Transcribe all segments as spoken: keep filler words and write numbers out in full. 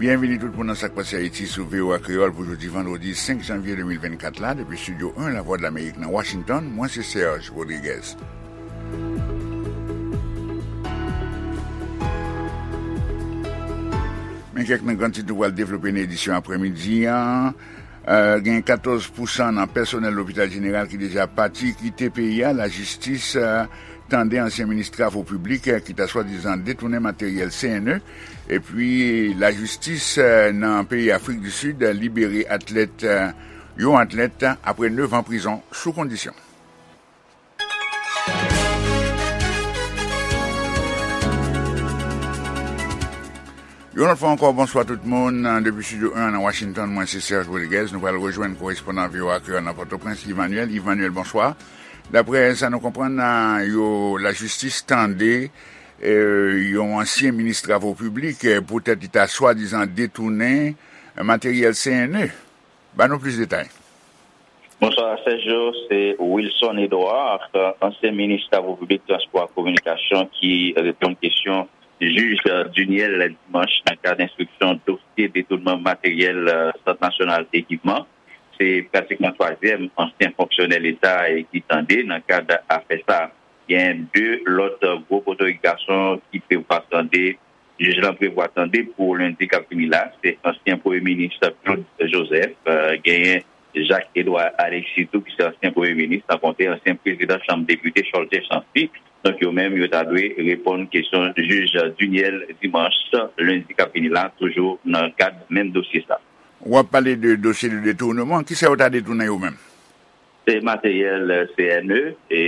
Byenvini tout moun nan Sa k Pase Ayiti sou V O A Kreyòl pou jodi vandredi senk janvye de mil vennkat la, depi Estidyo en Lavwadlamerik nan Washington, mwen se Serge Rodriguez. Men kèk nan gran tit nou pral devlope nan edisyon aprèmidi an. Euh, gen katòz pousan nan pèsonèl lopital jeneral ki deja pati kite peyi a. Lajistis, euh, tande ansyen minis travo piblik, euh, ki ta swadizan detounen materyèl C N E. Epi, lajistis, euh, nan peyi Afrik di Sid, euh, libere atlèt, euh, yon atlèt apre nèf an prizon sou kondisyon. Yon lòt fwa ankò, bonswa tout moun. Depi Estidyo en nan Washington, mwen se Serge Rodriguez. Nou pral rejwenn korespondan V O A Kreyòl nan Pòtoprens, Yves Manuel. Yves Manuel, bonswa. Daprè sa nou konprann, yo, lajistis tande, eh, yon ansyen minis travo piblik, eh, poutèt li ta swadizan detounen, eh, materyèl C N E. Ban nou plis detay. Bonswa, Sergio. Se Wilson Edouard, ansyen minis travo piblik, transpò ak kominikasyon, ki reponn kesyon jij Duniel dimanch nan kad enstriksyon dosye detounman materyèl, euh, Sant Nasyonal Ekipman. Se pratikman twazyèm ansyen fonksyonè Leta, e, ki tande nan kad afè sa. Gen de lòt gwo potorik gason ki prevwa tande, jij lan prevwa tande pou lendi k ap vini la, se ansyen premye minis Claude Joseph, euh, genyen Jacques Edouard Alexis tou, ki se ansyen premye minis, san konte ansyen prezidan chanm depite Cholter Chancy. Donk, yo menm, yo ta dwe reponn kesyon jij Duniel dimanch, lendi k ap vini la, toujou nan kad menm dosye sa. W ap pale de dosye de detournement. Kisa yo ta detounen yo menm? Se materyèl C N E, e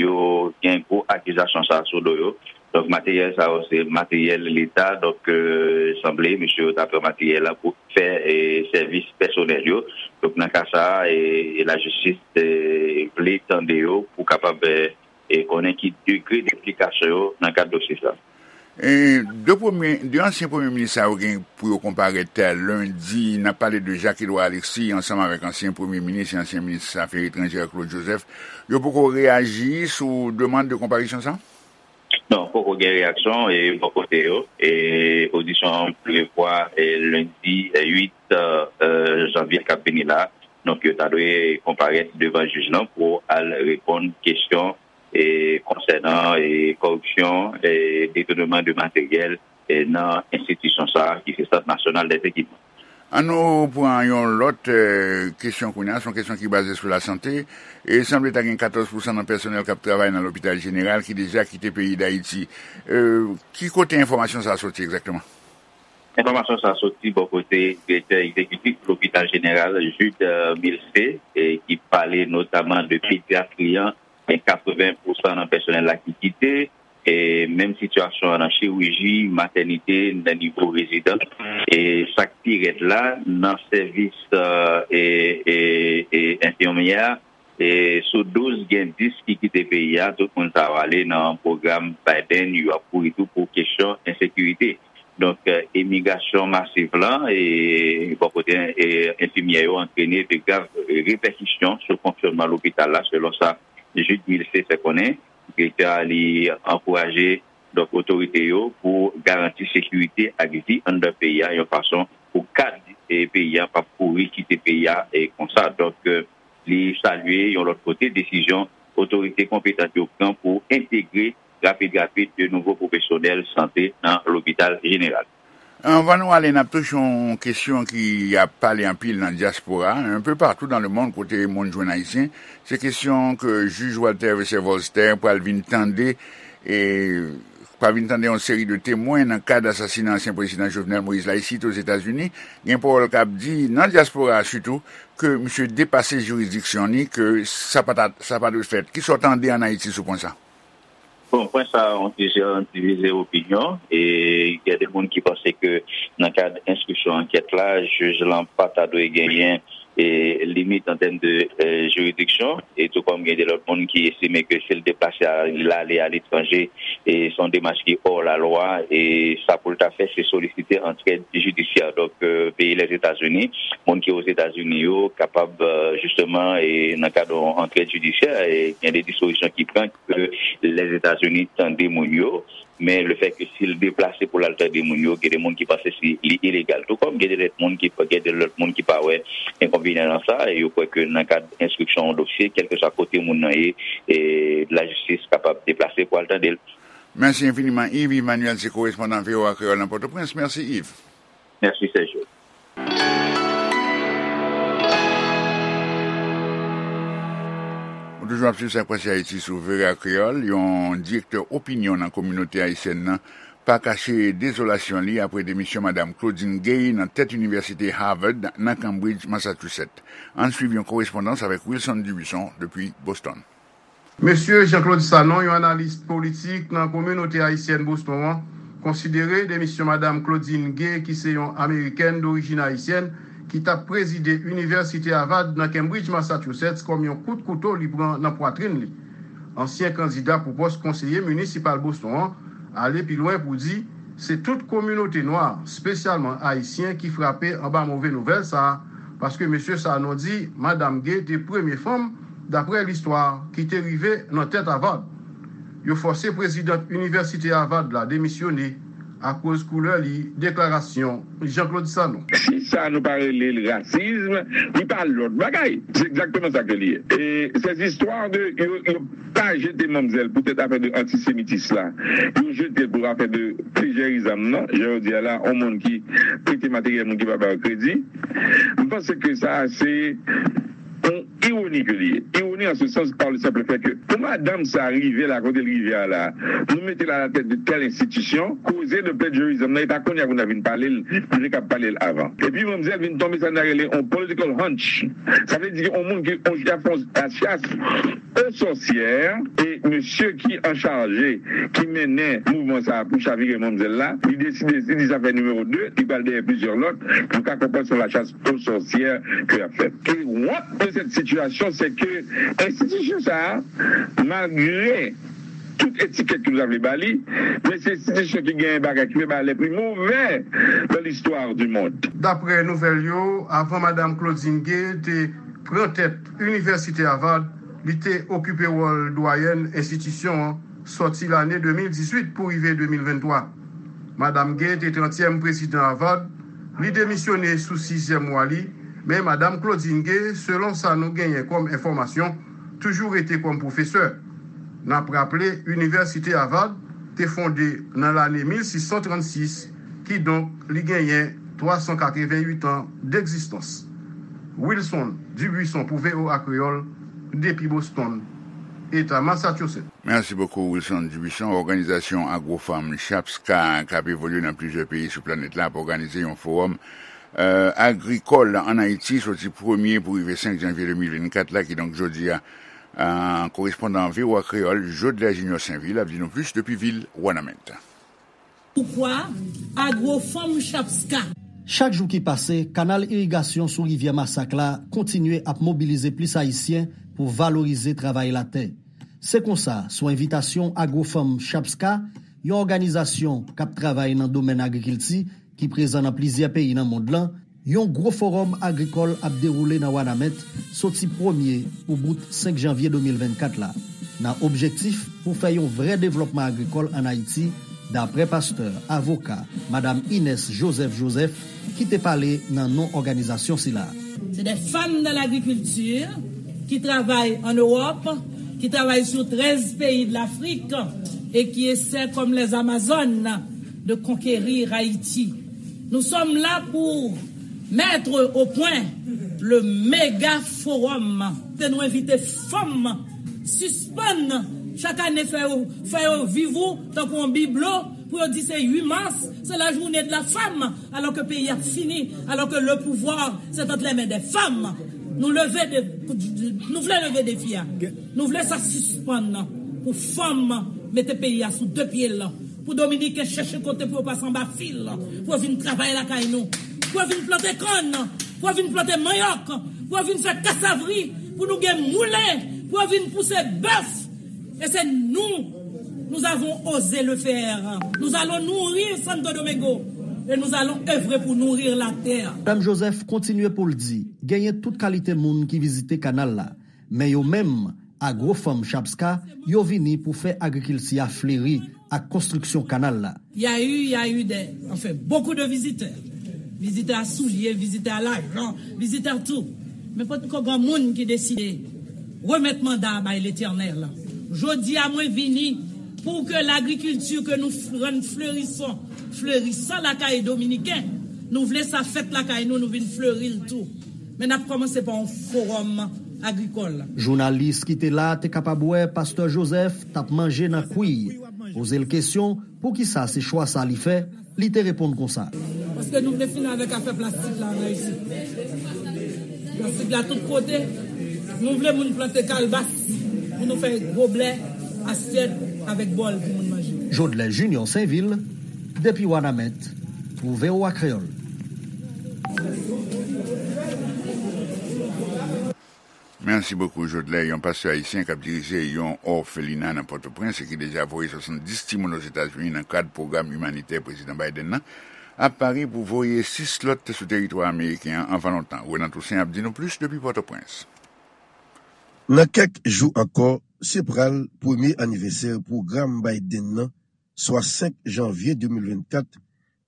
yo gen gwo akizasyon sa sou do yo. Donk, materyèl sa yo, se materyèl Leta. Donk, euh, sanble, mesye yo ta pran materyèl la pou fè, e, sèvis pèsonèl yo. Donk, nan ka sa a, e, e lajistis, e, vle tande yo pou kapab, e, e konnen ki degre d enplikasyon yo nan kad dosye sa. E de premye, de ansyen premye minis sa yo gen pou yo konparèt, e, lendi. N ap pale de Jacques Edouard Alexis ansanm avèk ansyen premye minis e ansyen minis afè etranjè Claude Joseph. Yo poko reyaji sou demann de konparisyon sa? Non, poko gen reyaksyon, e, bò kote yo. E odisyon an prevwa, e, lendi, e, uit, e, janvye k ap vini la. Donk, yo ta dwe konparèt devan jij lan pou al reponn kesyon, e, konsènan, e, kòripsyon, e, detounman de materyèl, e, nan enstitisyon sa a, ki se Sant Nasyonal dèzekipman. An nou pran yon lòt, e, kesyon kounye a, se yon kesyon ki baze sou lasante. E sanble ta gen katòz pousan nan pèsonèl k ap travay nan lopital jeneral ki deja kite peyi Dayiti. E, ki kote enfòmasyon sa a soti egzakteman? Enfòmasyon sa a soti bò kote direktè egzekitif lopital jeneral, Jude, e, Milcé, e ki pale notaman de pedyatri an, gen katreven pousan nan pèsonèl la ki kite, e menm sitiyasyon an nan chiriji, matènite, nan nivo rezidans, e sa k pi rèd la, nan sèvis, e, e, e, e enfimyè, e sou douz, gen dis ki kite peyi a, tout moun sa yo ale nan pwogram Biden, yo ap kouri tou pou kesyon ensekirite. Donk, e, imigrasyon masiv lan, e, bò kote, e, enfimyè yo antrene de grav repèkisyon sou fonksyònman lopital la, selon sa Jude Milcé fè konnen. Direktè a, li ankouraje, donk, otorite yo pou garanti sekirite ak vi anndan peyi a, yon fason pou kad, e, peyi a p ap kouri kite peyi a, e, konsa. Donk, e, li salye yon lòt kote desizyon otorite konpetan yo pran pou entegre rapid rapid de nouvo pwofesyonèl sante nan lopital jeneral. Anvan nou ale, n ap touche yon kesyon ki ap pale anpil nan dyaspora, un peu partout dans le monde, kote moun jwenn Ayisyen. Se kesyon ke jij Walter Wesser Volster pral vin tande, e pral vin tande yon seri de temwen nan kad asasina ansyen prezidan Jovenel Moïse la isit Ozetazini. Gen pawòl k ap di nan dyaspora a sitou ke misye depase jiridiksyon li, ke sa pa ta, sa pa dwe fèt. Kisa w tande ann Ayiti sou pwen sa? Bon, pwen sa a, yon plizyè divize opinyon, e gen de moun ki panse ke nan kad enstriksyon ankèt la, jij lan pa ta dwe genyen, e, limit an tèm de, e, jiridiksyon, e tou kòm gen de lòt moun ki estime ke si l deplase a, l ale aletranje, e se yon demach ki hors la loi, e sa pou l ta fè, se solisite antrèd jidisyè. Donk, e, peyi Lèzetazini, moun ki Ozetazini yo, kapab, e, jisteman, e nan kad yon antrèd jidisyè, e gen de dispozisyon ki pran ke Lèzetazini tande moun yo, men lefètke si l deplase pou l al tande moun yo, gen de moun ki panse si li ilegal. Tou kòm gen de lòt moun ki, gen de lòt moun ki pa wè enkonvenyan nan sa, e yo kwè ke nan kad enstriksyon yon dosye, kèlkeswa kote moun nan ye, e lajistis kapab deplase pou al tande l. Mèsi enfiniman, Yves Emmanuel, se korespondan V O A Kreyòl nan Pòtoprens. Mèsi, Yves. Mèsi, Sergio. Ou toujou ap swiv Sa k Pase Ayiti sou V O A Kreyòl. Yon direktè opinyon nan kominote ayisyèn nan pa kache dezolasyon li apre demisyon Madam Claudine Gay nan tèt Inivèsite Harvard nan Cambridge, Massachusetts. Ann swiv yon korespondans avèk Wilson Dubuisson depi Boston. Mesye Jean Claude Sanon, yon analis politik nan kominote ayisyèn Boston an, konsidere demisyon Madam Claudine Gay, ki se yon Amerikèn dorijin ayisyèn, ki t ap prezide Inivèsite Harvard nan Cambridge, Massachusetts, kòm yon kout kouto li pran nan pwatrin li. Ansyen kandida pou pòs konseye minisipal Boston an ale pi lwen pou di se tout kominote nwa, espesyalman ayisyen, ki frape anba move nouvèl sa a, paske mesye Sanon di Madam Gay te premye fanm, daprè listwa, ki te rive nan tèt Harvard. Yo fòse prezidant Inivèsite Harvard la demisyone akoz koulè li, deklarasyon Jean Claude Sanon. Si sa nou pa rele l rasism, li pa lòt bagay. Se egzakteman sa ke li ye. E ces histoires de yo, yo pa jete manmzèl poutèt afè de antisemitis la. Yo jete l pou afè de plejèrizam nan. Jan yo di a la, yon moun ki prete materyèl moun ki pa ba yo kredi. M panse ke sa se yon ironi ke li ye. Ironi an se sans pa le senp fè ke pou madanm sa rive la kote l rive a la, nou mete l a la tèt de tèl enstitisyon, koze de plejèrizam nan, e pa kounye a pou n ta vin pale l, nou te kab pale l avan. Epi manmzèl vin tonbe sa n ta rele yon political hunch. Sa vle di yon moun ki, yon chèf, yon chas aux sorcières, e mesye ki an chaje, ki mennen mouvman sa a pou chavire manmzèl la, li deside, li di sa fè nimewo de, li pral dèyè plizyè lòt, nou ka konprann se yon lachas aux sorcières ke y ap fè. E wont de cette situation, c'est que enstitisyon sa a, malgre tout etikèt ke nou ta vle ba li, men se enstitisyon ki genyen bagay ki fè bagay les plus mauvais dans l'histoire du monde. Daprè nouvèl yo, avan Madam Claudine Gay te pran tèt Inivèsite Harvard, li te okipe wòl dwayèn enstitisyon an sòti lane de mil dizuit pou rive de mil venntwa. Madam Gay te trantyèm prezidan Harvard, li demisyone sou sizyèm mwa li, men Madam Claudine Gay, selon sa nou genyen kòm enfòmasyon, toujou rete kòm pwofesè. N ap raple, Inivèsite Harvard te fonde nan lane mil sis san trannsis, kidonk li genyen twa san katrevenn uit an degzistans. Wilson Dubuisson pou V O A Kreyòl, depi Boston, Eta Massachusetts. Mèsi bokou, Wilson Dubuisson. Òganizasyon Agrofanm Chapska, k ap evolye nan plizyè peyi sou planèt la, ap òganize yon fowòm, e, agrikòl ann Ayiti, soti premye pou rive senk janvye de mil vennkat la, kidonk jodi a. E, korespondan V O A Kreyòl, Jodler Junior Sainvil, ap di nou plis depi vil Wanament. Poukwa Agrofanm Chapska? Chak jou ki pase, kanal irigasyon sou rivyè Masak la kontinye ap mobilize plis Ayisyen pou valorize travay latè. Se konsa, sou envitasyon Agrofanm Chapska, yon òganizasyon k ap travay nan domèn agrikilti ki prezan nan plizyè peyi nan mond lan, yon gwo fowòm agrikòl ap dewoule nan Wanament soti premye pou bout senk janvye de mil vennkat la, nan objektif pou fè yon vrè devlòpman agrikòl ann Ayiti, daprè pastè, avoka, madam Ines Joseph Joseph, ki te pale nan non òganizasyon sila. C'est des femmes dans l'agriculture qui travaillent en Europe, qui travaillent sur treize pays de l'Afrique et qui essaient, comme les Amazones, de conquérir Haïti. Nous sommes là pour mettre au point le méga forum. Te nou envite fanm sispann chak ane fè yo, fè yo viv ou tankou yon biblo pou yo di se uit mas, c'est la journée de la femme, alors que peyi a fini, alors que le pouvoir c'est entre les mains des femmes. Nou leve de, nou vle leve defi a. Nou vle sa sispann pou fanm mete peyi a sou de pye l. Pou Dominiken chèche kote pou yo pase anba fil, pou yo vin travay lakay nou, pou yo vin plante kann, pou yo vin plante manyòk, Pou yo vin fè kasavri, pou nou gen moulen, pou yo vin pouse bèf. E se nou, nous avons osé le faire. Nous allons nourrir Santo Domingo. Et nous allons œuvrer pour nourrir la terre. Madanm Joseph kontinye pou l di, genyen tout kalite moun ki vizite kanal la, men yo menm, Agwofanm Chapska, yo vini pou fè agrikilti a fleri ak konstriksyon kanal la. Il y a eu, il y a eu des, enfin, beaucoup de visiteurs. Visiteurs à souliers, visiteurs à l'argent, visiteurs tout. Men potko gen moun ki deside remèt manda a bay Letènèl. Jodi a mwen vini pou ke lagrikilti ke nou f- rann flerisan, flerisan lakay dominiken, nou vle sa fèt lakay nou, nou vin fleri l tou. Men n ap kòmanse pa yon fowòm agrikòl. Jounalis ki te la te kapab wè Pastè Joseph t ap manje nan kwi. Poze l kesyon, poukisa se chwa sa li fè, li te reponn konsa. Paske nou vle fini avèk afè plastik la an Ayiti. Plastik la tout kote, nou vle moun plante kalbas pou nou fè goblè, asyèt avèk bòl pou moun manje. Jodlè Junior Sainvil, depi Wanament, pou V O A Kreyòl. Mèsi bokou, Jodlè. Yon pastè ayisyen k ap dirije yon òfelina nan Pòtoprens e ki deja voye swasanndis timoun Ozetazini nan kad pwogram imanitè Prezidan Biden nan, ap pare pou voye sis lòt sou teritwa ameriken an anvan lontan. Renan Toussaint ap di nou plis depi Pòtoprens. Nan kèk jou ankò, se pral premye anivèsè pwogram Biden nan, swa senk janvye de mil vennkat,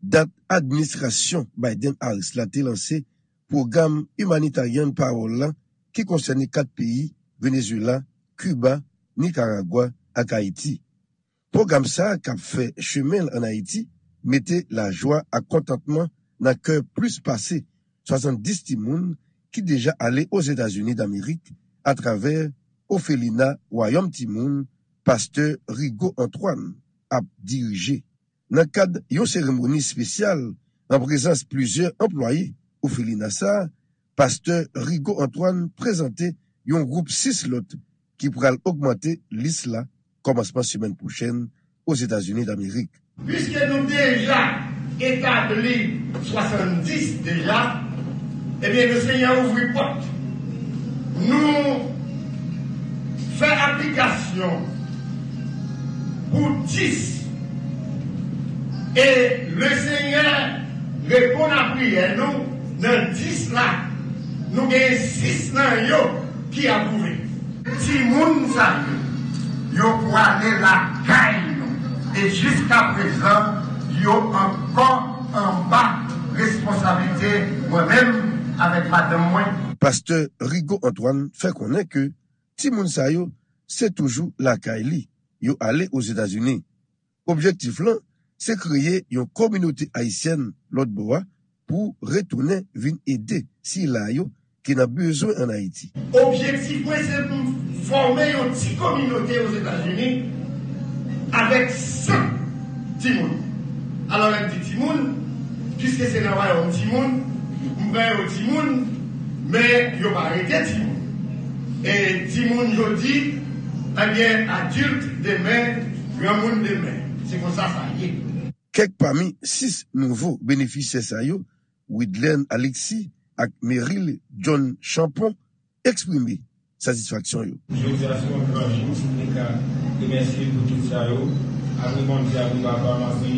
dat administrasyon Biden-Harris la te lanse pwogram Humanitarian Parole la ki konsène kat peyi, Venezuela, Kiba, Nikaragwa ak Ayiti. Pwogram sa a k ap fè chemen l ann Ayiti mete lajwa ak kontantman nan kè plis pase swasanndis timoun ki deja ale Ozetazini Damerik atravè òfelina Wayòm Timoun pastè Rigaud Antoine ap dirije. Nan kad yon seremoni espesyal an prezans plizyè anplwaye òfelina sa a, pastè Rigaud Antoine prezante yon gwoup sis lòt ki pral ogmante lis la kòmansman semèn pwochèn Ozetazini Damerik. Piske nou deja etabli swasanndis deja, ebyen, Lesenyè ouvri pòt. Nou fè aplikasyon pou dis. E Lesenyè reponn a priyè nou nan dis la. Nou gen sis nan yo ki apwouve. Timoun sa yo, yo pwale lakay nou. E jiskaprezan, yo ankò anba responsablite mwen menm avèk madanm mwen. Pastè Rigaud Antoine fè konnen ke timoun sa yo se toujou lakay li, yo ale Ozetazini. Objektif lan, se kreye yon kominote ayisyèn lòt bò a pou retounen vin ede sila yo ki nan bezwen ann Ayiti. Objektif mwen, se pou m fòme yon ti kominote Ozetazini avèk senk timoun. Alò, lè m di timoun, piske se nan wayòm timoun, m pran yo timoun, men yo pa rete timoun. E timoun jodi, ebyen, adilt demen, granmoun demen. Se konsa sa ye. Kèk pami sis nouvo benefisyè sa yo, Widlen Alexis ak Meryl John Champon, eksprime satisfaksyon yo. Jodi a se yon gran jou pou mwen ka remèsye pou tout sa yo. Apre Bondye, apre papa m, apre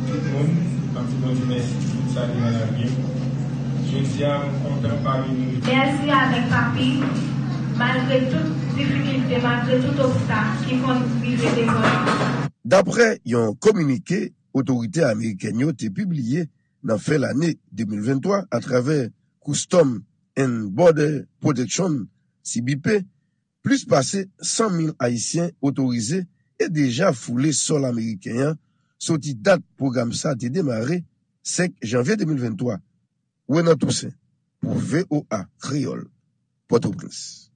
tout moun, m ap di Bondye mèsi pou tout sa ki nan lavi m. Jodi a, m kontan pami nou. Mèsi avèk papi, malgre tout difikilte, malgre tout obstak ki konn rive devan nou. Daprè yon kominike otorite amerikèn yo te pibliye nan fen lane de mil venntwa atravè Customs and Border Protection, C B P, plis pase san mil Ayisyen otorize e deja foule sòl ameriken an soti dat pwogram sa te demare, senk janvye de mil venntwa. Renan Toussaint, pou V O A Kreyòl, Pòtoprens.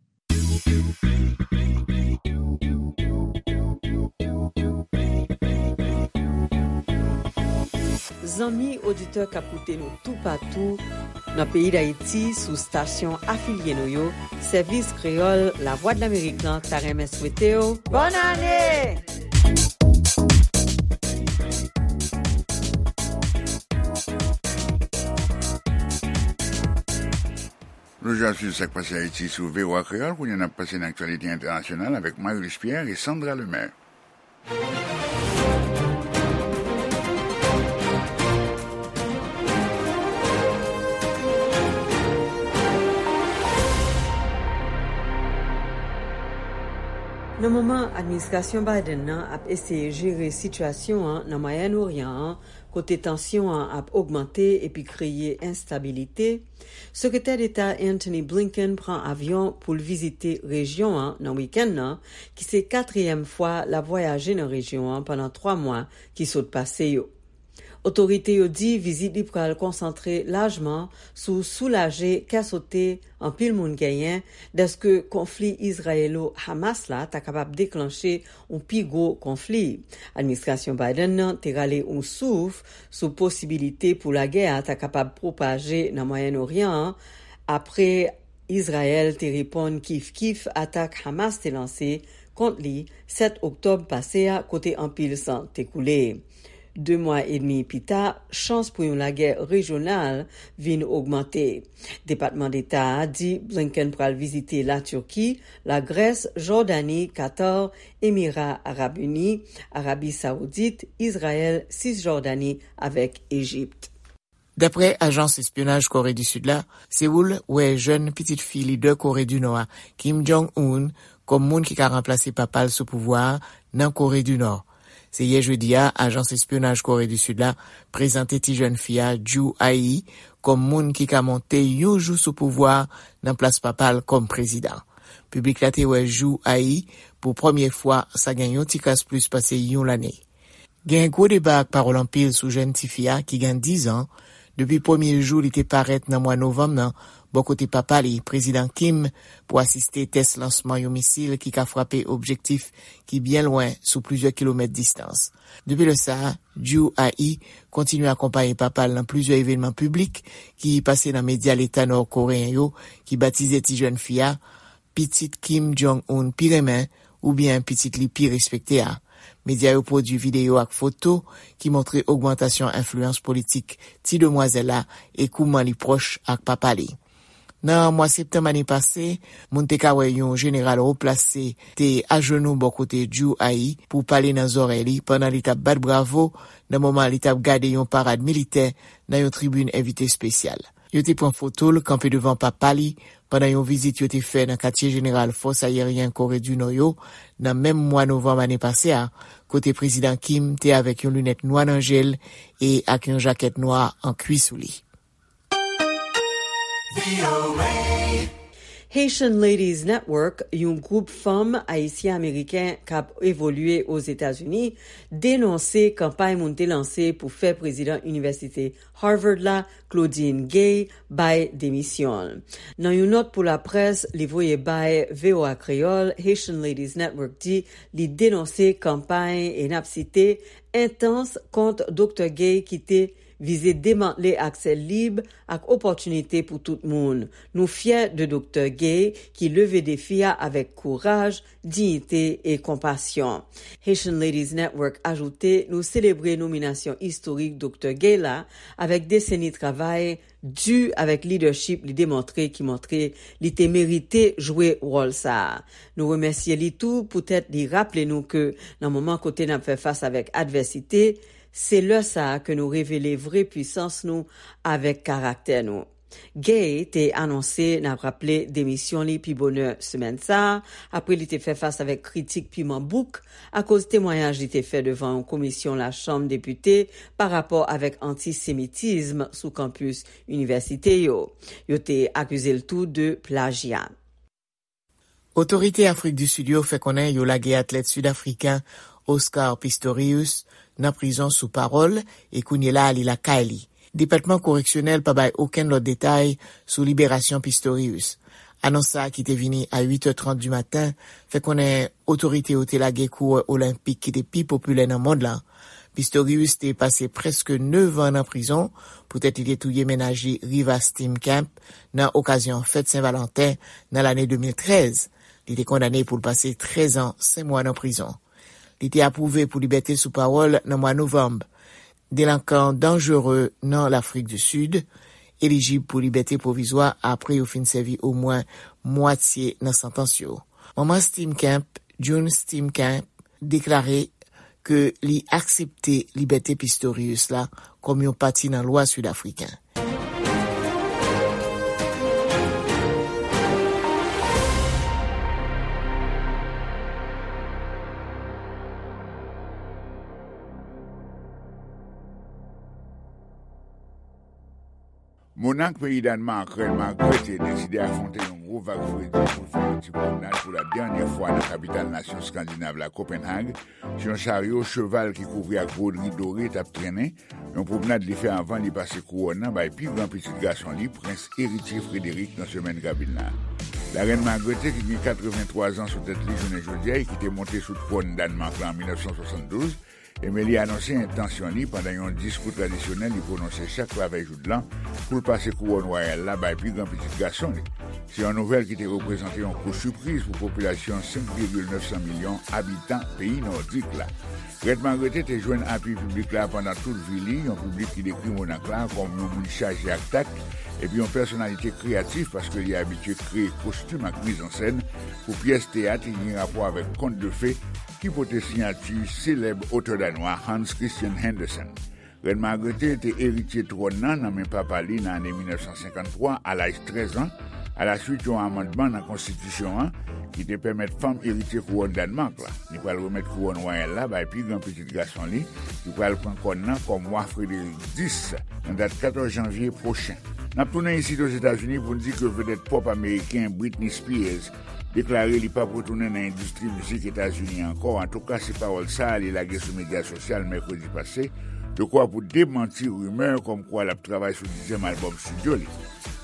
Zanmi oditè k ap koute nou toupatou nan peyi Dayiti sou stasyon afilye nou yo, Sèvis Kreyòl Lavwadlamerik lan ta renmen swete w bòn ane! Ap swiv sa k pase Ayiti sou V O A Kreyòl. Kounye a n ap pase nan aktyalite entènasyonal avèk Marius Pierre e Sandra Lemaire. Nan moman administrasyon Biden nan ap eseye jere sitiyasyon an nan Mwayen Oryan an, kote tansyon an ap ogmante epi kreye enstabilite, Sekretè Deta Antony Blinken pran avyon pou l vizite rejyon an nan wikenn nan, ki se katriyèm fwa l ap vwayaje nan rejyon an pandan twa mwa ki sot pase yo. Otorite yo di vizit li pral konsantre lajman sou soulaje kè sote anpil moun genyen dèske konfli Izrayelo-Hamas la ta kapab deklanche yon pi gwo konfli. Administrasyon Biden nan te rale yon souf sou posibilite pou lagè a ta kapab pwopaje nan Mwayen Oryan an, apre Izrayèl te reponn kif kif atak Hamas te lanse kont li sèt oktòb pase a, kote anpil san te koule. De mwa edmi pita, chans pou yon lagè rejyonal vin ogmante. Depatman Deta a di Blinken pral vizite Latirki, Lagrès, Jòdani, Katar, Emira Arab Ini, Arabi Sawoudit, Izrayèl, Sisjòdani avèk Ejip. Daprè ajans espyonaj Kore di Sid la, Sewoul wè jèn pitit fi lidè Kore di Nò a, Kim Jong-un, kòm moun ki ka ranplase papa l sou pouvwa a nan Kore di Nò. Se yè jedi a, ajans espyonaj Kore di Sid la prezante ti jèn fi a, Ju Ai, kòm moun ki ka monte yon jou sou pouvwa a nan plas papa l kòm prezidan. Piblik la te wè Ju Ai pou premye fwa, sa gen yon ti kras plis pase yon lane. Gen gwo deba ak pawòl anpil sou jèn tifi a ki gen diz an, depi premye jou li te parèt nan mwa novanm nan, bò kote papa li, Prezidan Kim, pou asiste tès lansman yon misil ki ka frape objektif ki byen lwen sou plizyè kilomèt distans. Depi lè sa a, Ju Ai kontinye akonpaye papa l nan plizyè evènman piblik ki pase nan medya leta nò koreyen yo, ki batize ti jèn fi a pitit Kim Jong-un pi renmen oubyen pitit li pi respekte a. Medya yo pwodui videyo ak foto ki montre ogmantasyon enfliyans politik ti demwazèl la e kouman li pwòch ak papa li. Nan mwa septanm ane pase, moun te ka wè yon jeneral wo plase te ajenou bò kote Ju Ai pou pale nan zòrèy li pandan li t ap bat bravo nan moman li t ap gade yon parad militè nan yon tribin envite espesyal. Yo te pran foto l kanpe devan papa li pandan yon vizit yo te fè nan katye jeneral fòs ayeryen Kore di Nò yo nan menm mwa novanm ane pase a, kote Prezidan Kim te avèk yon linèt nwa nan je l e ak yon jakèt nwa an kwi sou li. Haitian Ladies Network, yon gwoup fanm ayisyen-ameriken k ap evolye Ozetazini, denonse kanpay moun te lanse pou fè prezidan Inivèsite Harvard la, Claudine Gay, bay demisyon l. Nan yon nòt pou laprès li voye bay V O A Kreyòl, Haitian Ladies Network di li denonse kanpay, e n ap site, entans kont Doktè Gay ki te vize demantle aksè lib ak opòtinite pou tout moun. Nou fyè de Doktè Gay ki leve defi a avèk kouraj, diyite e konpasyon. Haitian Ladies Network ajoute, nou selebre nominasyon istorik Doktè Gay la avèk deseni travay di avèk lidèchip li demontre ki montre li te merite jwe wòl sa a. Nou remèsye li tou poutèt li raple nou ke nan moman kote n ap fè fas avèk advèsite, se lè sa a ke nou revele vre pwisans nou avèk karaktè nou. Gay te anonse, n ap raple, demisyon li pi bonè semèn sa a, apre li te fè fas avèk kritik piman bouk akoz temwayaj li te fè devan yon komisyon Lachanm Depite pa rapò avèk antisemitism sou kanpis inivèsite yo. Yo te akize l tou de plajya. Otorite Afrik di Sid yo fè konnen yo lage atlèt sidafriken Oscar Pistorius nan prizon sou pawòl e kounye la a li lakay li. Depatman koreksyonèl pa bay okenn lòt detay sou liberasyon Pistorius. Anons sa a ki te vini a uit è trant di maten fè konnen otorite yo te lage kourè olenpik ki te pi popilè nan mond lan. Pistorius te pase prèske nèf an nan prizon poutèt li te touye mennaj li Riva Steenkamp nan okazyon fèt Sen Valanten nan lane de mil trèz. Li te kondane pou l pase trèz an, senk mwa nan prizon. Li te apwouve pou libète sou pawòl nan mwa novanm. Delankan danjere nan Lafrik di Sid, elijib pou libète pwovizwa apre yo fin sèvi omwen mwatye nan santans yo. Manman Steenkamp, June Steenkamp, deklare ke li aksepte libète Pistorius la kòm yon pati nan lwa sid afriken. Monnak peyi Dànmak, Reine Margrethe, deside afwonte yon gwo vag fredi pou l fè yon ti pwomnad pou la dènyè fwa nan kapital nasyon Eskandinav la, Copenhague, sou yon charyo cheval ki kouvri ak bwodri dore t ap trennen, yon pwomnad li fè anvan li pase kouwòn nan bay pi gran pitit gason li, Prens Eritye Frederick, nan semèn k ap vin la. Larèn Margrethe, ki gen katrevenntwa zan sou tèt li jounen jodi a e ki te monte sou twòn Dànmak la an mil nèf san swasanndouz, Emeli anonse entansyon li pandan yon diskou tradisyonèl li pwononse chak lavèy joudlan pou l pase kouwòn wayal la bay pi gran pitit gason li. Se yon nouvèl ki te reprezante yon kou sipriz pou popilasyon senk vigil nèf san milyon abitan peyi nòdik la. Rèn Margrethe te jwenn apui piblik la pandan tout vi li, yon piblik ki dekri monak la kòm yon moun chaje ak tak epi yon pèsonalite kreyatif paske li abitye kreye kostim ak mizansèn pou pyès teyat ki gen rapò avèk kont de fe ki pote siyati selèb otè danwa Hans Christian Andersen. Rèn Margrethe te eritye twòn nan nan men papa li nan ane mil nèf san senkanntwa a laj trèz an, alaswit yon amandman nan konstitisyon an ki te pèmèt fanm eritye kouwòn Dànmak la. Li pral remèt kouwòn wayal la bay pi gran pitit gason li, ki pral pran kòn nan kòm wa Frederik dis nan dat katòz janvye pwochen. N ap tounen isit Ozetazini pou n di ke vedèt pòp ameriken Britney Spears deklare li p ap retounen nan endistri mizik Etazini ankò. Antouka, se pawòl sa a li lage sou medya sosyal mèkredi pase, dekwa pou demanti rimè kòmkwa l ap travay sou dizyèm albòm estidyo li.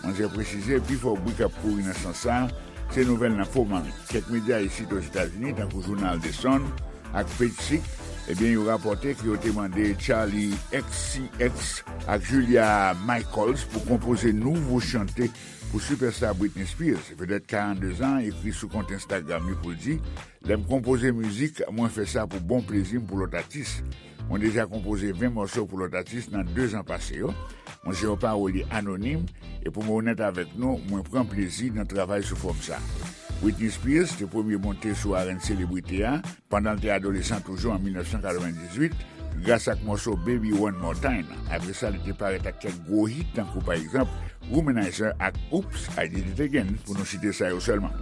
Manzè presize, pifò bri k ap kouri nan sans sa a, se nouvèl nan fo manmi. Kèk medya isit Ozetazini, tankou jounal The Sun ak Page Six, ebyen, yo rapòte ke yo te mande Charli X C X ak Julia Michaels pou konpoze nouvo chante pou sipèsta Britney Spears. Vedèt karannde zan ekri sou kont Instagram li pou l di, lè m konpoze mizik, mwen fè sa pou bon plezi m pou lòt atis. Mwen deja konpoze ven mòso pou lòt atis nan de zan pase yo. Mwen se yon pawolye anonim, e pou mwen onèt avèk nou, mwen pran plezi nan travay sou fòm sa. Britney Spears te premye monte sou arèn selebrite a pandan l te adolesan toujou an mil nèf san katrevendizuit, gras ak mòso Baby One More Time. Apre sa, li te parèt ak kèk gwo hit, tankou pa egzanp Womanizer ak Oops, I Did It Again, pou nou site sa yo sèlman.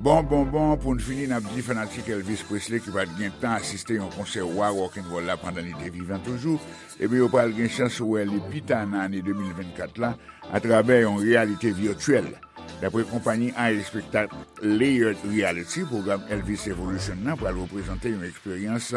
Bon, bon, bon, pou n fini, n ap di fanatik Elvis Presley ki pa t gen tan asiste yon konsè wa rock'n'roll la pandan li te vivan toujou, ebyen, yo pral gen chans wè li pita nan ane de mil vennkat la atravè yon reyalite vityèl. Dapre konpayi a espektak Layered Reality, pwogram Elvis Evolution nan pral reprezante yon eksperyans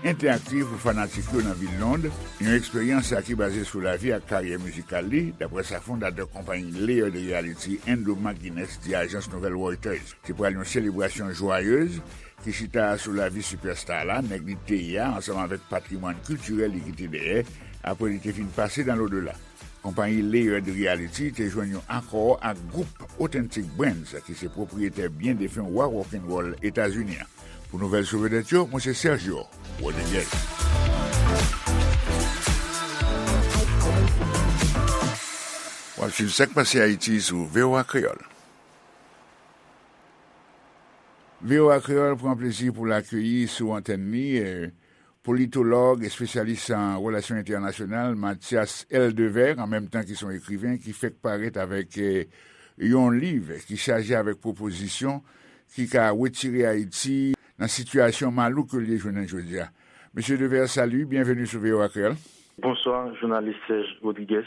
entèaktiv pou fanatik yo nan vil Lond, yon eksperyans ki baze sou lavi ak karyè mizikal li, dapre sa fondatè konpayi Layered Reality, Andrew McGuinness, di ajans nouvèl Reuters. Se pral yon selebrasyon jwayez ki chita sou lavi sipèsta la, nèg li te ye a, ansanm avèk patrimwàn kiltirèl li kite dèyè, apre li te fin pase dans l'au-delà. Konpayi Layered Reality te jwenn yon akò ak gwoup Authentic Brands, ki se pwopriyetè byen defen wa rock'n'roll Etazini an. Pou nouvèl sou vedèt yo, mwen se Sergio Rodriguez. W ap swiv Sa k Pase Ayiti sou V O A Kreyòl. V O A Kreyòl pran plezi pou l akeyi sou antèn li, eh, politològ, espesyalis an relasyon entènasyonal, Mathias L. Devers, an menm tan ki se yon ekriven ki fèk parèt avèk, eh, yon liv ki chaje avèk pwopozisyon ki ka retire Ayiti nan sitiyasyon malouk ke l ye jounen jodi a. Mesye Devers, salut, byenveni sou V O A Kreyòl. Bonswa, jounalis Serge Rodriguez.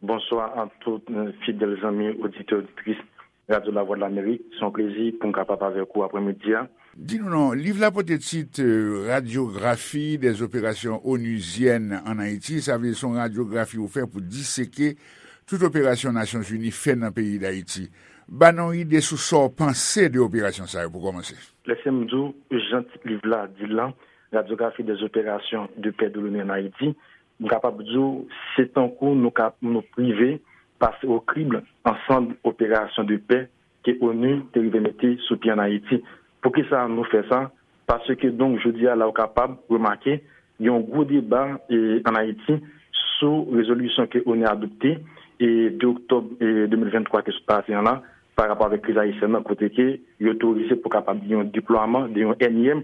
Bonswa a tout, eh, fidèl zanmi, oditè, oditris Radyo Lavwadlamerik. Se yon plezi pou m kapab avèk ou aprèmidi a. Di nou non, liv la pote tit, eh, Radyografi dèz operasyon onuzyèn ann Ayiti. Sa vle di se yon radyografi ou fè pou diseke tout operasyon Nasyonzini fè nan peyi Dayiti. Ba nou yon ide sou sa w panse de operasyon sa yo pou kòmanse. Lèse m di w, jan tit liv la di l lan, Radyografi dèz operasyon de pè de l'ONU ann Ayiti, m kapab di w, se tankou nou ka, nou prive pase o krib ansanm operasyon de pè ke onu te rive mete sou pye ann Ayiti. Poukisa nou fè sa? Paske, donk, jodi a la, ou kapab remake, gen yon gwo deba, e, ann Ayiti sou rezolisyon ke onu adopte, e de oktòb e de mil venntwa ki sot pase an la, pa rapò avèk kriz ayisyèn nan, kote ke yo otorize pou kapab gen yon deplwaman de yon ènyèm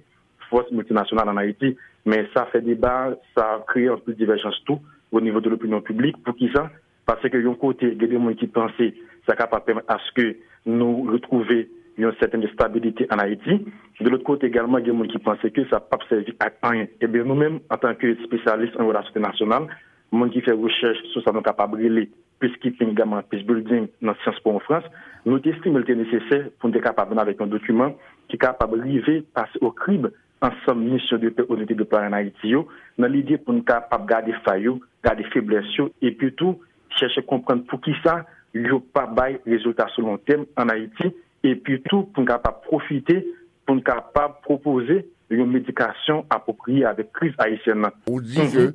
fòs miltinasyonal ann Ayiti. Men sa fè deba, sa kreye anpil divèjans tou o nivo de lopinyon piblik. Poukisa? Paske yon kote, gen de moun ki panse sa kapab pèmèt aske nou retwouve yon sètèn estabilite ann Ayiti. De lòt kote egalman, gen moun ki panse ke sa p ap sèvi ak anyen. Ebyen, nou menm, antanke espesyalis an relasyon entènasyonal, moun ki fè rechèch sou sa nou kapab rele peacekeeping, egalman peace building nan Sciences Po an Frans, nou te estime l te nesesè pou n te kapab vin avèk yon dokiman ki kapab rive pase o krib ansanm misyon de pè ONU te deplwaye ann Ayiti yo, nan lide pou n kapab gade fay yo, gade feblès yo, epi tou chèche konprann poukisa yo pa bay rezilta sou lon tèm ann Ayiti, epi tou pou n kapab pwofite, pou n kapab pwopoze yon medikasyon apwopriye avèk kriz ayisyèn nan. Ou di ke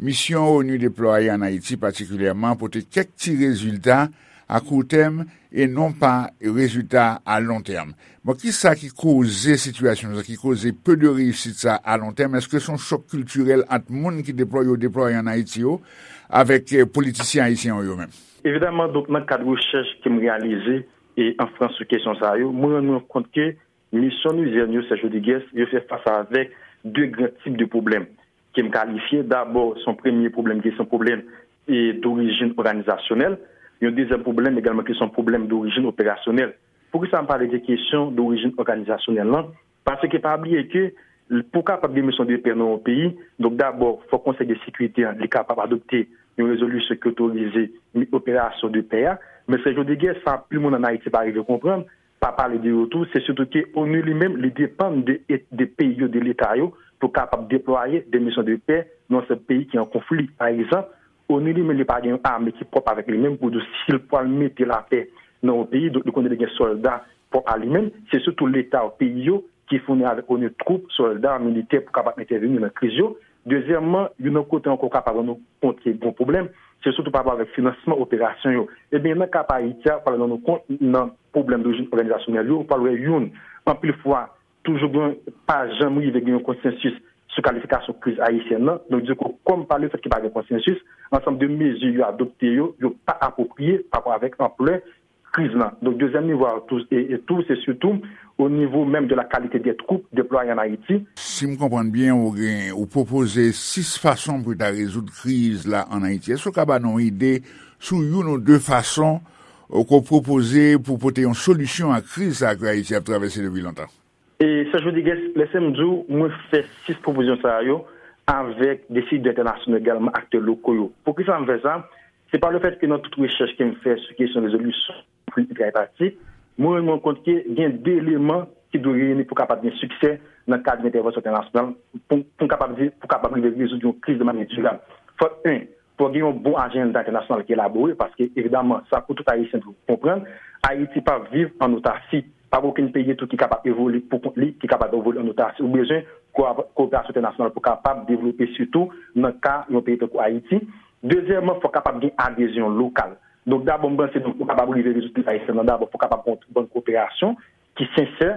misyon ONU deplwaye ann Ayiti patikilyèman pote kèk ti rezilta a kou tèm e non pa rezilta a lon tèm. Bon, kisa ki koze sitiyasyon sa, ki koze pe de reyisit sa a lon tèm? Èske se yon chòk kiltirèl ant moun ki deplwaye, yo deplwaye ann Ayiti yo, avèk eh, politisyen ayisyen yo menm? Evidaman, donk, nan kad rechèch ke m reyalize e an Frans sou kesyon sa yo, mwen rann mwen kont ke misyon onusyèn yo, Serge Rodrigues, yo fè fas avèk de gran tip de pwoblèm ke m kalifye. Dabò, se yon premye pwoblèm ki se yon pwoblèm e dorijin òganizasyonèl, yon dezyèm pwoblèm egalman ki se yon pwoblèm dorijin operasyonèl. Poukisa m pale de kesyon dorijin òganizasyonèl lan? Paske pa bliye ke pou kapab gen misyon de pè nan yon peyi, donk dabò, fòk Konsèy de Sekirite an, li kapab adopte yon rezolisyon ki otorize operasyon de pè a. Men Serge Rodrigues, sa anpil moun ann Ayiti pa rive konprann, pa pale de yo tou, se sitou ke ONU li menm, li depann de, de peyi yo, de leta yo, pou kapab deplwaye de misyon de pè nan yon sèl peyi ki an konfli. Pa egzanp, ONU li menm, li pa gen yon ame ki pwòp avèk li menm pou di si l pral mete lapè nan yon peyi, donk li konnen li gen sòlda pwòp a li menm. Se sitou leta yo, peyi yo, ki founi avèk ONU twoup, sòlda, militè pou kapab entèveni nan kriz yo. Dezyèmman, youn nan kote ankò w kapab rann ou kont ke gen pwoblèm, se sitou pa rapò avèk finansman operasyon yo. Ebyen, nan ka pa Ayiti a, w pral rann ou kont nan pwoblèm dorijin òganizasyonèl yo, w pral wè youn, anpil fwa, toujou gen, pa janm rive gen yon konsansis sou kalifikasyon kriz ayisyèn nan. Donk, dikou, kòm pa lefèt ke pa gen konsansis, ansanm de mezi yo adopte yo, yo pa apwopriye pa rapò avèk anplè kriz lan. Donk, dezyèm nivo a tou, e, e tou, se sitou o nivo menm de la qualité des troupes déployées en Haïti. Si m konprann byen, ou gen, ou pwopoze sis fason pou ta rezoud kriz la ann Ayiti. Èske w ka ba nou yon ide sou youn ou de fason, ou, ke w pwopoze pou pote yon solisyon a kriz sa ke Ayiti ap travèse depi lontan? E Serge Rodrigues, lèse m di w, mwen fè sis pwopozisyon sa yo avèk desidè entènasyonal egalman aktè loko yo. Poukisa m fè sa? Se pa lefèt ke nan tout rechèch ke m fè sou kesyon rezolisyon konfli entraypatik, mwen rann mwen kont ke gen de eleman ki dwe reyini pou kapab gen siksè nan kad de entèvansyon entènasyonal, pou, pou n kapab di, pou kapab rive rezoud yon kriz de manyè dirab. Fòk, en, fòk gen yon bon ajanda entènasyonal ki elabore, paske, evidaman, sa pou tout Ayisyen dwe konprann, Ayiti p ap viv ann otasi. Pa gen okenn peyi tou ki kapab evolye pou kont li, ki kapab evolye ann otasi. Ou bezwen ko-, koperasyon entènasyonal pou kapab devlope, sitou nan ka yon peyi tankou Ayiti. Dezyèmman, fòk kapab gen adezyon lokal. Donk, dabò, m panse, donk, pou kapab rive rezoud kriz ayisyèn nan, dabò, fòk kapab gen yon bann koperasyon ki sensè,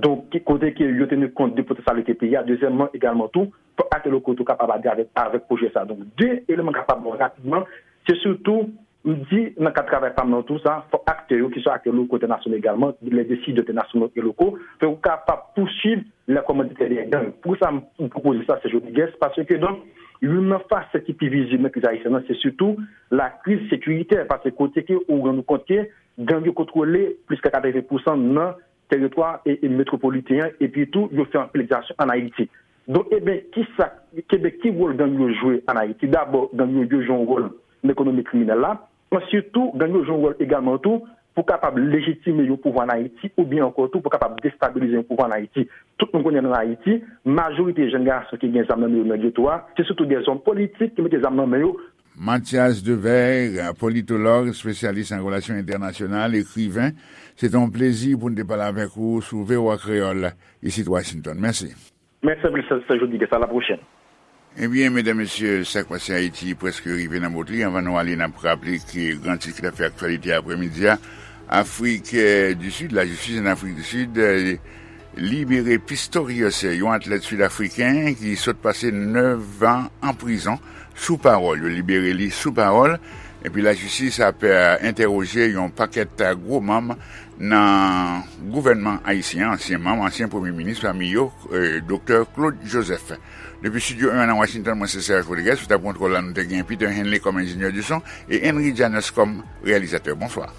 donk, ki, kote ke yo teni kont de potansyalite peyi a. Dezyèmman, egalman tou, fòk aktè loko tou kapab adere avèk, avèk pwojè sa. Donk, de eleman kapab bon rapidman, se sitou, m di, nan kad travay pa m nan tou sa, fòk aktè yo, ki swa aktè loko, entènasyonal egalman, les décideurs internationaux et locaux, fòk yo kapab pouswiv les commanditaires des gangs. Pou sa, m, m pwopoze sa, Serge Rodrigues, paske, donk, youn nan fasèt ki pi vizib nan kriz ayisyèn nan, se sitou la kriz sekiritè, paske kote ke ou rann ou kont ke gang yo kontwole plis ke katreven pousan nan teritwa e, e metwopoliten an, epi tou, yo fè anpil egzasyon ann Ayiti. Donk, ebyen, kisa, ebyen, ki wòl gang yo jwe ann Ayiti? Dabò, gang yo, yo jwe yon wòl nan ekonomi kriminèl la. Answit tou, gang yo jwe yon wòl egalman tou pou kapab lejitime yon pouvwa ann Ayiti, oubyen ankò tou pou kapab destabilize yon pouvwa ann Ayiti. Tout moun konnen ann Ayiti, majorite jèn gason ki gen zam nan men yo nan geto a, se sitou de zòm politik ki mete zam nan men yo. Mathias Devers, politològ, espesyalis an relasyon entènasyonal, ekriven, se te yon plezi pou n te pale avèk ou sou V O A Kreyòl, isit Washington. Mèsi. Mèsi anpil, Sè, Sè Jodi, a la pwochèn. Ebyen, medam, mesye, Sa k Pase Ayiti prèske rive nan bout li. Anvan nou ale, n ap raple ke gran tit ki t ap fè aktyalite aprèmidi a, Afrik, eh, di Sid, lajistis an Afrik di Sid, eh, libere Pistorius, yon atlèt sid-afriken ki sot pase nèf an an prizon sou pawòl. Yo libere li sou pawòl. Epi lajistis ap entèwoje yon pakèt gwo manm nan gouvènman ayisyen an, ansyen manm, ansyen premye minis, pami yo Doktè Claude Joseph. Depi Estidyo en an nan Washington, mwen se Serge Rodriguez, sou tab kontwòl la nou te gen Peter Henley kòm enjenyè di son e Henry Janus kòm reyalizatè. Bonswa.